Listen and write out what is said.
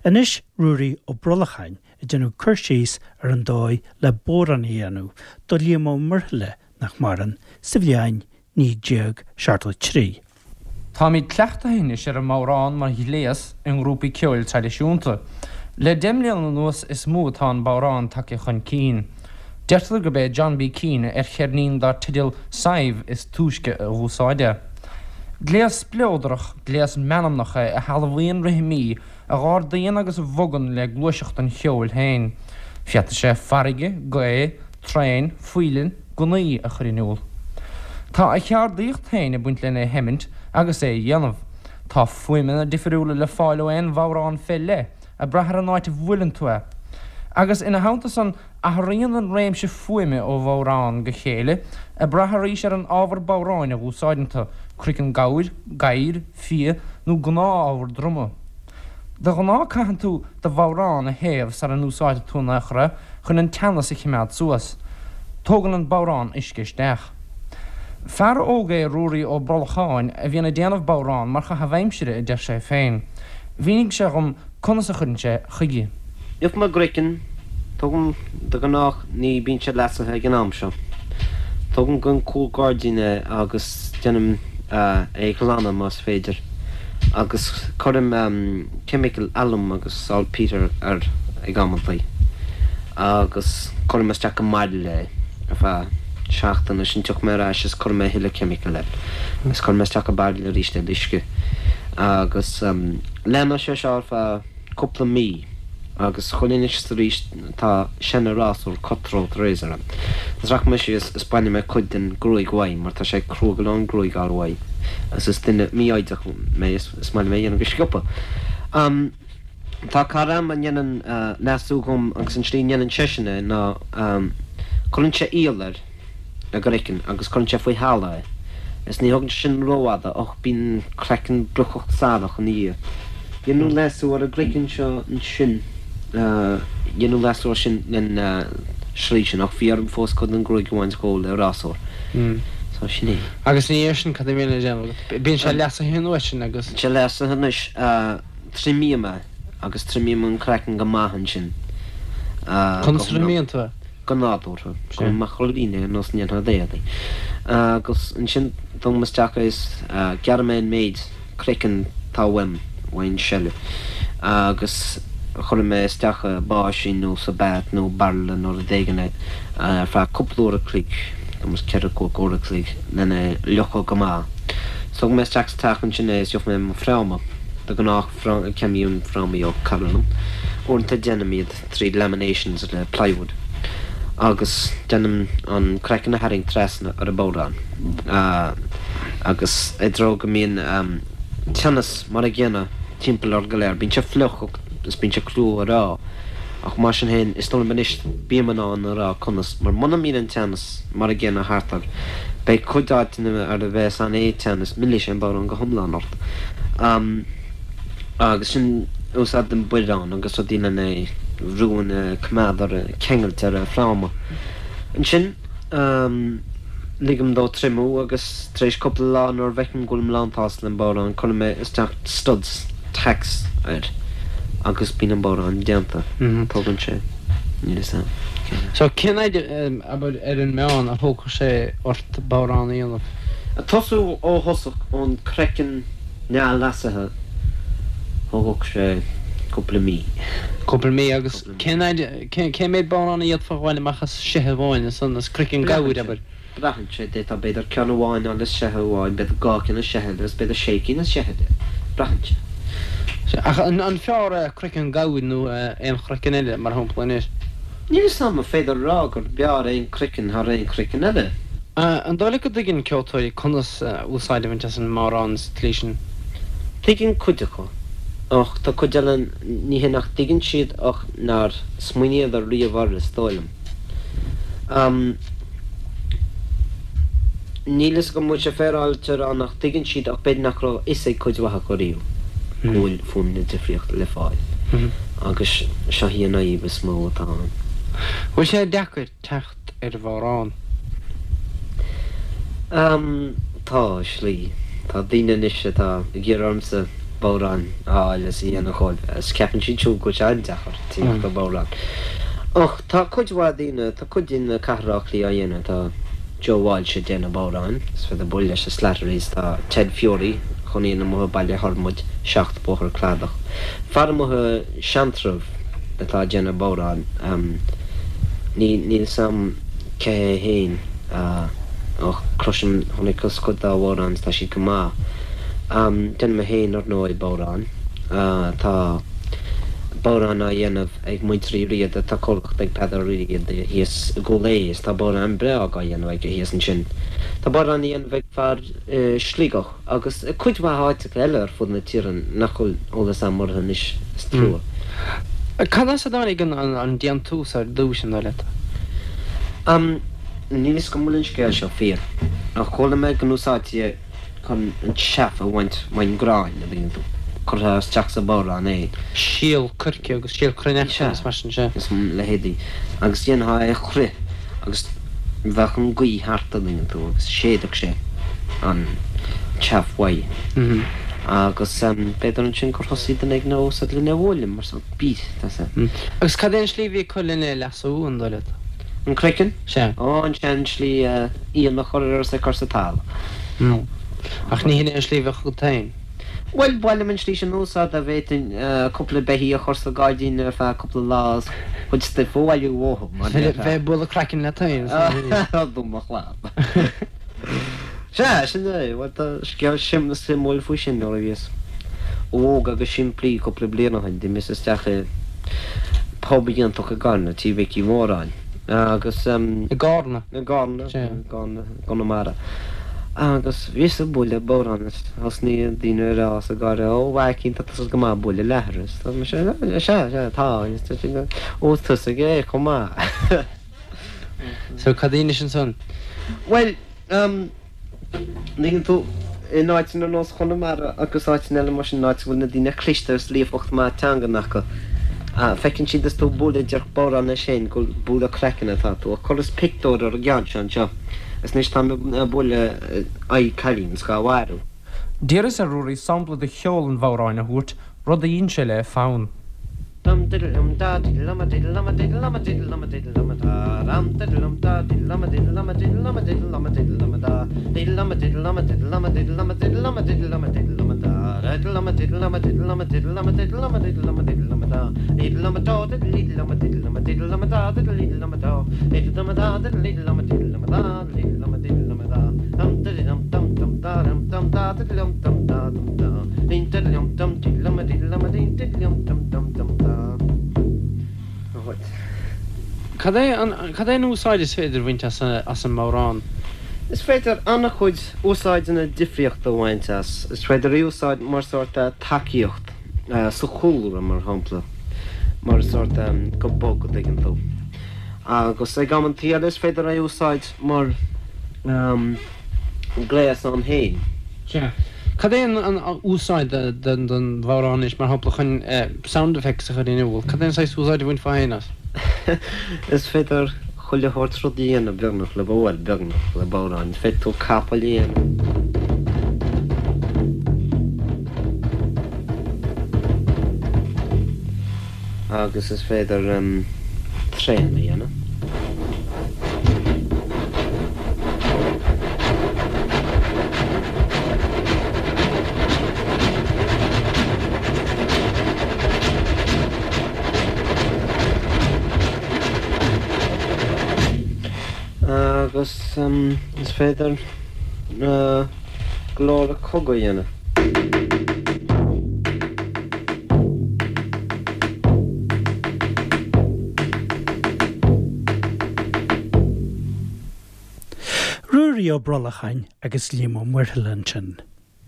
Anois Ruairí Ó Brolacháin ag déanamh cur síos ar an dóigh le bodhrán a dhéanamh do Liam Ó Muirthile, nach maireann, sa bhliain 1973. Táimid cleachtaithe anois ar an mbodhrán mar ghléas i ngrúpaí ceoil traidisiúnta. Le deich mbliana anuas is mó atá an bodhrán tagtha chun cinn. Deirtear gurb é John B. Keane ar cheirnín dar teideal Sadhbh is túisce a dh'úsáid é. Gléas spleodrach, gléas meanmnach é a shealbhaíonn rithimí a dh'ardaíonn agus a bhogann le gluaiseacht an cheoil féin. Féadfaidh sé farraige, gaoth, traein, faoileann, gunnaí a chur in iúl. Tá a cheardaíocht féin ag baint lena sheimint agus é a dhéanamh. Tá fuaimeanna difiriúla le fáil ó aon bhodhrán fé leith, ag brath ar an áit a bhuaileann tú é. Agus ina theannta san, athraíonn an réimse fuaime ó bhodhrán go chéile, ag brath arís ar an ábhar bodhráin a dh'úsáideann tú, croiceann gabhair, gadhair, fia, nó gnáth-ábhar druma. De ghnáth caitheann tú do bhodhrán a théamh sara n-úsáidfidh tú in aon chor é chun an teannas a chimeád suas. Tógann an bodhrán uisce isteach. Fear óg é Ruairí Ó Brolacháin a bhíonn ag déanamh bodhrán mar chaitheamh aimsire a deir sé féin. Mhínigh sé dhom conas a chuireann sé chuige. Gheobhaidh mé craiceann, tógaim de ghnách ní bíonn sé leasaithe ag an am seo. Tógaim gon cúl gairdín é agus déanaim é a ghlanadh más féidir. agus cuirim ceimiceal alum agus saltpeter air ag amantaí agus cuirim isteach i mbairille é ar feadh seachtaine, ansin tiocfaidh mé ar ais is cuirfidh mé a thuilleadh ceimiceal air agus cuirfidh mé isteach i bairille arís é le uisce agus leanfaidh sé seo ar feadh cúpla mí. Agus chuile anois is arís tá seana-rásúr cut-throat razor a'm. Is rachaidh mé síos is bainfidh mé cuid den gruaig uaim mar tá sé crua go leor an gruaig a fháil uaidh agus is duine mífhoighdeach mé is is maith liom é a dhéanamh go sciobtha. Am, tá cara a'm a ndéanann leasú dhom agus an tslí a ndéanann seisean é ná cuireann sé iall air. an gcraiceann agus cuireann sé faoi thalamh é is ní thógann sé sin rófhada ach bíonn craiceann brocach sarach ina dhiaidh. Deineadh leasú ar an gcraiceann seo ansin, deineadh leasú air sin len slí sin ach bhí orm fós cuid den ghruaig a bhaint dhó le rásúr. So sin é. Agus ina dhiaidh sin cad a bhíonn le déanamh agat? Bíonn sé leasaithe an uair sin agus. Bíonn sé leasaithe anois, triomaím é agus triomaím an craiceann go maith ansin. Conas a thriomaíonn tú é? go nádúrtha, go macrailín é ar nós a ndéanfá d'éadaí. Agus ansin tógaim isteach é is gearrfaidh mé an méid craiceann atá uaim, uaidh an seile, agus cuirfidh mé isteach i báisín nó sa bath nó bairille nó rud éigin é ar feadh cúpla uair a chloig, tuairim is ceithre cúig uair a chloig, lena fhliuchadh go maith. Tógfaidh mé isteach sa teach ansin é is gheobhaidh mé mo fhráma, de ghnáth ceannaím frámaí ó cara liom, uaireanta déanaim iad. tríd laminations le plywood agus déanaim an craiceann a tharraingt trasna ar an bhodhrán agus i dtreo go mbíonn teannas mar a gcéanna timpeall air go léir. Bíonn sé fliuch is bíonn sé crua a rá ach mar sin féin is dóigh liom anois bím in ann a rá conas mar muna mbíonn an teannas mar a gcéanna thart air beidh cuid áiteanna ar a bheas an-teannas millfidh sé an bodhrán go hiomlán ort. Agus sin úsáidim biorán agus rudaí lena bhrú ina coimeád ar ceangailt ar an fráma. Ansin ligim dó triomú agus tar éis cúpla lá nuair a bhfeicim go bhfuilim lán-tsásta le an bodhrán cuirim mé isteach studs, tacks air agus bíonn an bodhrán déanta. Tógann sé, níl fhios a'm, cén. So cén fhaid, abair, ar an meán a thógfadh sé ort bodhrán a dhéanamh? Ag tosú ó thosach ón craiceann neamhleasaithe, thógfadh sé cúpla mí. Cúpla mí agus cén fhaid, cén méid bodhrán a d'fhéadfá a bhaint amach as seithe amháin ansan, as craiceann gabhair, abair? Braitheann sé, d'fhéadfá b'fhéidir ceann amháin a fháil as seithe amháin, b'fhéidir dhá cheann as seithe eile agus b'fhéidir sé cinn as seithe eile. Braitheann sé. Sea, ach an fearr é craiceann gabhair nó aon chraiceann eile, mar shampla anois? Níl fhios a'm an féidir a rá gur b'fhearr aon craiceann thar aon chraiceann eile. An dóigh leat go dtuigeann ceoltóirí conas úsáid a bhaint as an mbodhrán sa tslí sin? Tuigeann cuid acu, ach tá cuid eile, ní hé nach dtuigeann siad ach nár smaoiníodar riamh air, is dóigh liom. Níl fhios agam an bhfuil sé féaráilte a rá nach dtuigeann siad ach b'fhéidir nach raibh a fhios ag cuid mhaith acu riamh go bhfuil fuaimeanna difríochta le fáil agus seo í an fhadhb is mó atá ann. Bhfuil sé deacair teacht ar bhodhrán? Tá, i slí. Tá daoine anois atá ag iarraidh ormsa. Bodhrán a fháil is a dhéanamh dhóibh is ceapann siad siúd go bhfuil sé an-deacair tíocht ar bhodhrán. Ach tá cuid mhaith daoine, tá cuid daoine i Cathair Átha Cliath á dhéanamh, tá Joe Walsh ag déanamh bodhráin, is féidir bualadh leis i Slattery's, tá Ted Furey, a chónaíonn amuigh i Baile Thormaid, 7 Bóthar Cladach, fear amuigh i Seantrabh atá ag déanamh bodhrán, ní, níl 's a'm cé hé fhéin ach cloisim, chonaiceas cuid dá bhodhráin is tá siad go maith. Déanaim mé féin, ar ndóigh, bodhrán. Tá bodhrán á dhéanamh ag muintir Uí Riada, tá comhlacht ag Peadar Ó Riada thíos i gCúil Aodha is tá bodhrán breá á dhéanamh aige thíos ansin. Tá bodhrán á dhéanamh ag fear i Sligeach agus i cuid mhaith áiteacha eile ar fud na tíre nach bhfuil eolas a'm orthu anois, is trua. Cad as a dtáinig an déantús ar dtús, an dóigh leat? Níl fhios agam an bhfuil an scéal seo fíor, ach chuala mé go n-úsáidtí é chun an chaff a bhaint ón gcrann, an dtuigeann tú. Chuirfeá isteach sa bhodhrán é. Síol coirce agus síol cruithneachta agus mar sin, sea. Is a leithéidí. Agus dhéanfá é a chrith agus bheadh an ghaoth thart, an dtuigeann tú, agus shéidfeadh sé an chaff uaidh. Agus b'fhéidir ansin gur thosaigh duine éigin á úsáid lena bhualadh mar sórt beat, tá sé. Agus cad é an slí a bhí acu lena leasú, an dóigh leat? An craiceann? Sea. Ó, an sean-slí, oigheann a chur air is é cur sa talamh. No. Ach ní hin é an slí a bheadh agat féin. Bhuel, ba mhaith liom an slí sin a úsáid dá bhféadfainn cúpla beithíoch a chur sa ghairdín ar feadh cúpla lá is cuid stuif a bhailiú uathu, mar déarfá. Bheith ag bualadh craicinn leat féin is a Do mo chlab. Sea, sin é. Bhuel, tá scéal suimiúil faoi sin nuair a bhíos óg agus simplí cúpla bliain ó shin. D'imíos isteach i bpub iontach i gCarna, Tí Mhicí Mhóráin, agus. I gCarna? I gCarna, i gCarna, i gConamara. Agus bhíos ag bualadh bodhrán is thosnaigh daoine a rá is ag gáire, Ó, a Mhaicín, tá tusa go maith ag bualadh leathair. Is dúirt mise, Sea, sea, tá. Ó, is tusa é chomh maith. So, cad a dheinis ansan? Bhuel, An dtuigeann tú, in áiteanna ar nós Chonamara agus áiteanna eile mar sin, áit a bhfuil na daoine cliste agus líofacht maith teangan acu, feiceann siad is tú ag bualadh díreach bodhrán leis féin gur bualadh craicinn atá tú. Ach chuireas pictiúr ar an gceann seo anseo is anois táim ag bualadh aghaidh cailín is dhá mharú. D'iarras ar Ruairí sampla de cheol an bhodhráin a thabhairt, rud a dhein sé le fonn. Dum diddle dum da diddle um a diddle um a diddle um a diddle um a diddle um a da dum diddle um da diddle um a diddle um a diddle um a diddle um a diddle um a da diddle um a diddle um a diddle um a diddle um a diddle um a diddle um a diddle um a da diddle um a diddle um a diddle um a diddle um a diddle um a diddle um a diddle um a da diddle um a do diddle diddle um a diddle um a diddle um a da diddle diddle um a do diddle dum a da diddle diddle um a diddle um a da diddle um a diddle um a da dum diddle dum dum dum da dum dum da diddle dum dum da dum da Cad é an, cad é an úsáid is féidir a bhaint as as an mbodhrán? Is féidir an-chuid úsáideanna difríochta a bhaint as. Is féidir é a úsáid mar sórt tacaíocht sa chúlra, mar shampla, mar sórt go bog, an dtuigeann tú. Agus ag amantaí eile is féidir é a úsáid mar gléas ann féin. Sea. Cad é an úsáid don bhodhrán anois, mar shampla, chun sound effects a chur in iúl? Cad é an saghas úsáid a bhainfeá féin as? Is féidir chuile shórt rud a dhéanamh beagnach le, bhuel, beagnach le bodhrán. Is féidir tú capall a dhéanamh. Agus is féidir traein a dhéanamh. Agus is féidir glór cogaidh a dhéanamh. Ruairí Ó Brollacháin agus Liam Ó Muirthile ansin.